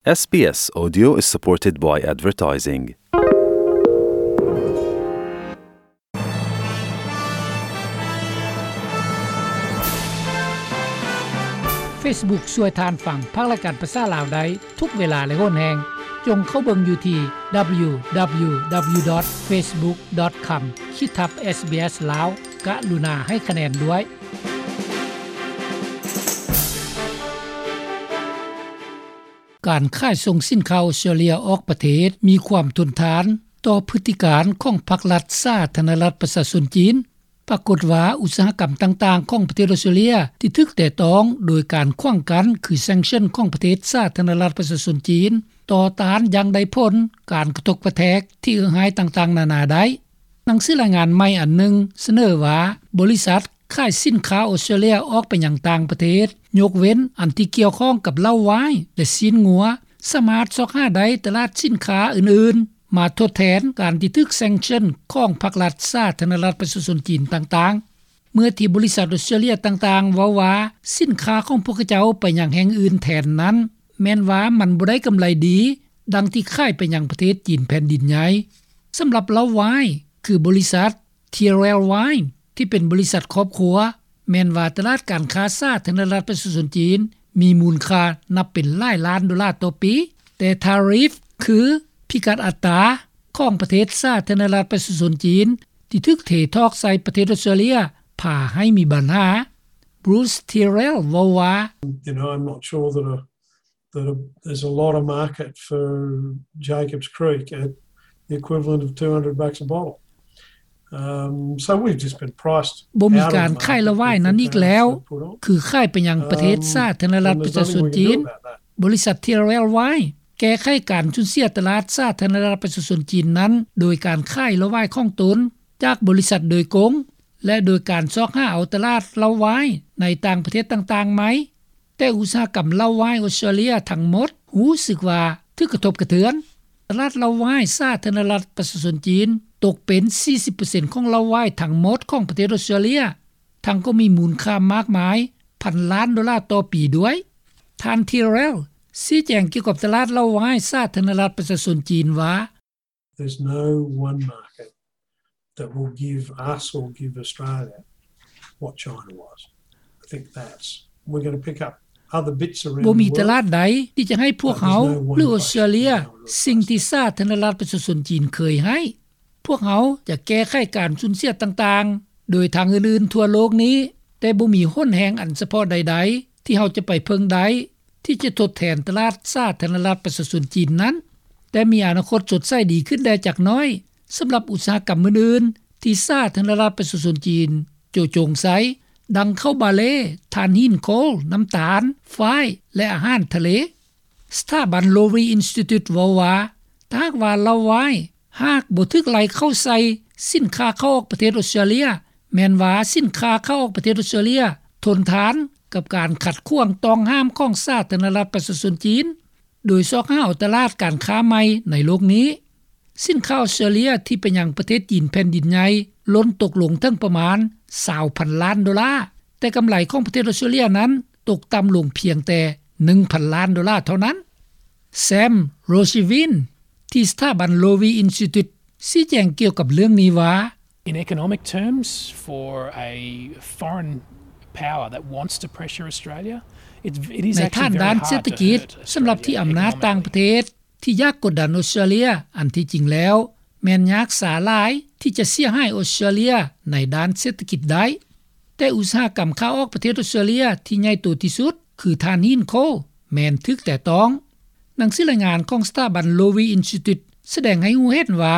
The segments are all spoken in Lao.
SBS Audio is supported by advertising. Facebook ຊ່ວຍທ່ານຟັງພາກລາຍການພາສາລາວໄດ້ທຸກເວລາ ແລະ ໂຫນແຮງ. ຈົ່ງເຂົ້າເບິ່ງຢູ່ທີ່ www dot facebook dot com ຂີດທັບ SBS ລາວ. ກະລຸນາໃຫ້ຄະແນນດ້ວຍ. ການຂາຍສົ່ງສິນຄ້າອອສເຕຣເລຍອອກປະເທດມີຄວາມທົນທານຕໍ່ພຶດຕິການຂອງພັກລັດສາທາລະນະລັດປະຊາຊົນຈີນ. ປາກົດວ່າອຸດສາຫະກຳຕ່າງໆຂອງປະເທດອອສເຕຣເລຍທີ່ຖືກແຕະຕ້ອງໂດຍການຂວາງກັ້ນ ຄື sanction ຂອງປະເທດສາທາລະນະລັດປະຊາຊົນຈີນ ຕໍ່ຕ້ານຢ່າງໄດ້ຜົນການກະທົບກະແທກທີ່ເອື້ອຍຮ້າຍຕ່າງໆນານາໄດ້. ໜັງສືລາຍງານໃໝ່ອັນໜຶ່ງສະເໜີວ່າ ບໍລິສັດຂາຍສິນຄ້າອອສເຕຣເລຍອອກໄປຍັງຕ່າງປະເທດ ຍົກເວັ້ນອັນທີ່ກ່ຽວຂ້ອງກັບເຫຼົ້າວາຍ ແລະ ຊີ້ນງົວ ສາມາດຊອກຫາໄດ້ຕະຫຼາດສິນຄ້າອື່ນໆ ມາທົດແທນການທີ່ຖືກ sanction ຂອງພັກລັດສາທາລະນະລັດປະຊາຊົນຈີນຕ່າງໆ. ເມື່ອທີ່ບໍລິສັດອອສເຕຣເລຍຕ່າງໆເວົ້າວ່າ ສິນຄ້າຂອງພວກເຂົາເຈົ້າໄປຍັງແຫ່ງອື່ນແທນນັ້ນ ແມ່ນວ່າມັນບໍ່ໄດ້ກຳໄລດີ ດັ່ງທີ່ຂາຍໄປຍັງປະເທດຈີນແຜ່ນດິນໃຫຍ່. ສຳລັບເຫຼົ້າວາຍ ຄືບໍລິສັດ Tyrrell Wine ທີ່ເປັນບໍລິສັດຄອບຄົວ ແມ່ນວ່າຕະຫຼາດການຄ້າສາທາລະນະລັດປະຊາຊົນຈີນ ມີມູນຄ່ານັບເປັນຫຼາຍລ້ານໂດລາຕໍ່ປີ, ແຕ່ tariff ຄືພິກັດອັດຕາຂອງປະເທດສາທາລະນະລັດປະຊາຊົນຈີນ ທີ່ຖືກເທຖອກໃສ່ປະເທດອອສເຕຣເລຍ ພາໃຫ້ມີບັນຫາ. Bruce Tyrrell ເວົ້າວ່າ You know, I'm not sure that a, that a, there's a lot of market for Jacob's Creek at the equivalent of two hundred bucks a bottle. Um, so we've just been priced out of the market with the tariffs they put on. ບໍ່ມີການຂາຍເຫຼົ້າວາຍນັ້ນອີກແລ້ວ ຄືຂາຍໄປຍັງປະເທດສາທາລະນະລັດປະຊາຊົນຈີນ. ບໍລິສັດ Tyrrell Wine ແກ້ໄຂການສູນເສຍຕະຫຼາດສາທາລະນະລັດປະຊາຊົນຈີນນັ້ນ ໂດຍການຂາຍເຫຼົ້າວາຍຂອງຕົນຈາກບໍລິສັດໂດຍກົງ ແລະ ໂດຍການຊອກຫາເອົາຕະຫຼາດເຫຼົ້າວາຍໃນຕ່າງປະເທດຕ່າງໆໃໝ່. ແຕ່ອຸດສາຫະກຳເຫຼົ້າວາຍອອສເຕຣເລຍທັງໝົດຮູ້ສຶກວ່າຖືກກະທົບກະເທືອນ. ຕະຫຼາດເຫຼົ້າວາຍສາທາລະນະລັດປະຊາຊົນຈີນຕົກເປັນສີ່ສິບເປີເຊັນຂອງເຫຼົ້າວາຍທັງໝົດຂອງປະເທດອອສເຕຣເລຍ, ທັງກໍມີມູນຄ່າມາກມາຍພັນລ້ານໂດລາຕໍ່ປີດ້ວຍ. ທ່ານ Tyrrell ຊີ້ແຈງກ່ຽວກັບຕະຫຼາດເຫຼົ້າວາຍສາທາລະນະລັດປະຊາຊົນຈີນວ່າ There's no one market that will give us or give Australia what China was. I think that's, we're gonna pick up other bits around the world, but there's no one place. ບໍ່ມີຕະຫຼາດໃດທີ່ຈະໃຫ້ພວກເຮົາ ຫຼື ອອສເຕຣເລຍ ສິ່ງທີ່ສາທາລະນະລັດປະຊາຊົນຈີນເຄີຍໃຫ້. ພວກເຮົາຈະແກ້ໄຂການສູນເສຍຕ່າງໆ ໂດຍທາງອື່ນໆທົ່ວໂລກນີ້, ແຕ່ບໍ່ມີຫົນແຮງອັນສະເພາະໃດໆທີ່ເຮົາຈະໄປເພິ່ງໄດ້ ທີ່ຈະທົດແທນຕະຫຼາດສາທາລະນະລັດປະຊາຊົນຈີນນັ້ນ, ແຕ່ມີອະນາຄົດສົດໃສດີຂຶ້ນແດ່ຈັກໜ້ອຍ ສຳລັບອຸດສາຫະກຳອື່ນໆທີ່ສາທາລະນະລັດປະຊາຊົນຈີນໂຈະຈົງໃສ່, ດັ່ງເຂົ້າບາເລ, ຖ່ານຫີນໂຄລ, ນ້ຳຕານ, ຝ້າຍ ແລະ ອາຫານທະເລ. ສະຖາບັນ Lowy Institute ເວົ້າວ່າ ຖ້າຫາກວ່າເຫຼົ້າວາຍຫາກບໍ່ຖືກໄລ່ເຂົ້າໃສ່ສິນຄ້າເຂົ້າອອກປະເທດອອສເຕຣເລຍ, ແມ່ນວ່າສິນຄ້າເຂົ້າອອກປະເທດອອສເຕຣເລຍທົນທານກັບການຂັດຂວາງຕ້ອງຫ້າມຂອງສາທາລະນະລັດປະຊາຊົນຈີນ, ໂດຍຊອກຫາເອົາຕະຫຼາດການຄ້າໃໝ່ໃນໂລກນີ້. ສິນຄ້າອອສເຕຣເລຍທີ່ໄປຍັງປະເທດຈີນແຜ່ນດິນໃຫຍ່ລົ້ນຕົກລົງເຖິງປະມານຊາວພັນລ້ານໂດລາ, ແຕ່ກຳໄລຂອງປະເທດອອສເຕຣເລຍນັ້ນຕົກຕ່ຳລົງພຽງແຕ່ໜຶ່ງພັນລ້ານໂດລາເທົ່ານັ້ນ. Sam Rojivin ທີ່ສະຖາບັນ Lowy Institute ຊີ້ແຈງກ່ຽວກັບເລື່ອງນີ້ວ່າ In economic terms, for a foreign power that wants to pressure Australia, it, it is actually very hard to hurt Australia's economic ability. ໃນທາງດ້ານເສດຖະກິດ, ສຳລັບທີ່ອຳນາດຕ່າງປະເທດທີ່ຢາກກົດດັນອອສເຕຣເລຍ, ອັນທີ່ຈິງແລ້ວແມ່ນຍາກສາຫຼາຍທີ່ຈະເສຍຫາຍອອສເຕຣເລຍໃນດ້ານເສດຖະກິດໄດ້. ແຕ່ອຸດສາຫະກຳຂາອອກປະເທດອອສເຕຣເລຍທີ່ໃຫຍ່ໂຕທີ່ສຸດ ຄືຖ່ານຫີນໂຄລ ແມ່ນຖືກແຕະຕ້ອງ. ໜັງສືລາຍງານຂອງສະຖາບັນ Lowy Institute ສະແດງໃຫ້ຮູ້ເຫັນວ່າ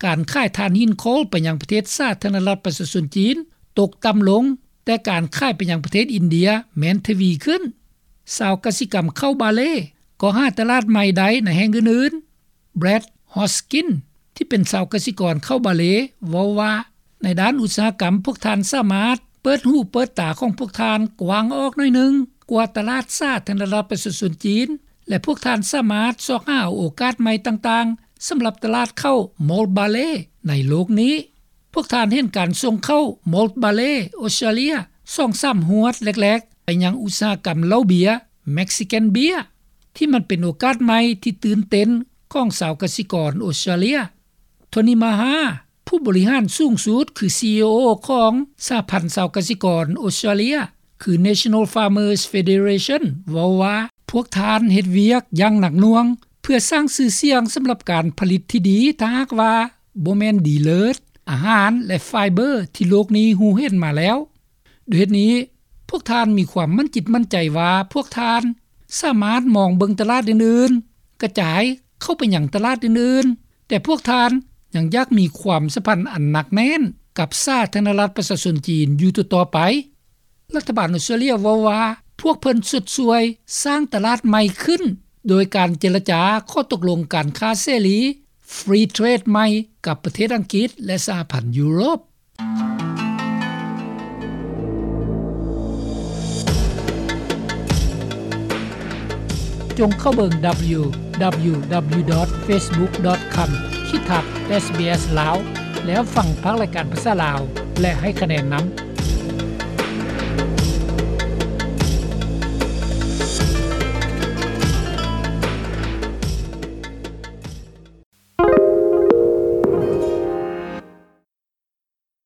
ການຂາຍຖ່ານຫີນໂຄລໄປຍັງປະເທດສາທາລະນະລັດປະຊາຊົນຈີນຕົກຕ່ຳລົງ, ແຕ່ການຂາຍໄປຍັງປະເທດອິນເດຍແມ່ນທະວີຂຶ້ນ. ຊາວກະສິກຳເຂົ້າບາເລກໍຫາຕະຫຼາດໃໝ່ໄດ້ໃນແຫ່ງອື່ນໆ. Brad Hoskin ທີ່ເປັນຊາວກະສິກອນເຂົ້າບາເລ ເວົ້າວ່າ ໃນດ້ານອຸດສາຫະກຳ, ພວກທ່ານສາມາດເປີດຫູເປີດຕາຂອງພວກທ່ານກວ້າງອອກໜ້ອຍໜຶ່ງກວ່າຕະຫຼາດສາທາລະນະລັດປະຊາຊົນຈີນ ແລະ ພວກທ່ານສາມາດຊອກຫາເອົາໂອກາດໃໝ່ຕ່າງໆ ສຳລັບຕະຫຼາດເຂົ້າ malt barley ໃນໂລກນີ້. ພວກທ່ານເຫັນການສົ່ງເຂົ້າ malt barley ອອສເຕຣເລຍ ສອງສາມຫວດແລກໆ ໄປຍັງອຸດສາຫະກຳເຫຼົ້າເບຍ Mexican beer. ທີ່ມັນເປັນໂອກາດໃໝ່ທີ່ຕື່ນເຕັ້ນຂອງຊາວກະສິກອນອອສເຕຣເລັຽ. ໂທນີ ມາຮາ ຜູ້ບໍລິຫານສູງສຸດ ຄື ຊີອີໂອ ຂອງສະຫະພັນຊາວກະສິກອນອອສເຕຣເລັຽ ຄື National Farmers Federation ເວົ້າວ່າ ພວກທ່ານເຮັດວຽກຢ່າງໜັກໜ່ວງ ເພື່ອສ້າງຊື່ສຽງສຳລັບການຜະລິດທີ່ດີ ຖ້າຫາກວ່າບໍ່ແມ່ນດີເລີດ ອາຫານ ແລະ ໄຟເບີ ທີ່ໂລກນີ້ຮູ້ເຫັນມາແລ້ວ. ດ້ວຍເຫດນີ້ ພວກທ່ານມີຄວາມໝັ້ນຈິດໝັ້ນໃຈວ່າ ພວກທ່ານສາມາດມອງເບິ່ງຕະຫຼາດອື່ນໆ, ກະຈາຍເຂົ້າໄປຍັງຕະຫຼາດອື່ນໆ, ແຕ່ພວກທ່ານຍັງຢາກມີຄວາມສຳພັນອັນໜັກແໜ້ນກັບສາທາລະນະລັດປະຊາຊົນຈີນຢູ່ຕໍ່ໆໄປ. ລັດຖະບານອອສເຕຣເລັຽເວົ້າວ່າ ພວກເພິ່ນຊົດຊ່ວຍສ້າງຕະຫຼາດໃໝ່ຂຶ້ນ ໂດຍການເຈລະຈາຂໍ້ຕົກລົງການຄ້າເສລີ Free Trade ໃໝ່ກັບປະເທດອັງກິດ ແລະ ສະຫະພັນຢູໂຣບ. ຈົ່ງເຂົ້າເບິ່ງ www.facebook.com/sbslao ແລ້ວຟັງພາກລາຍການພາສາລາວ ແລະ ໃຫ້ຄະແນນນຳ.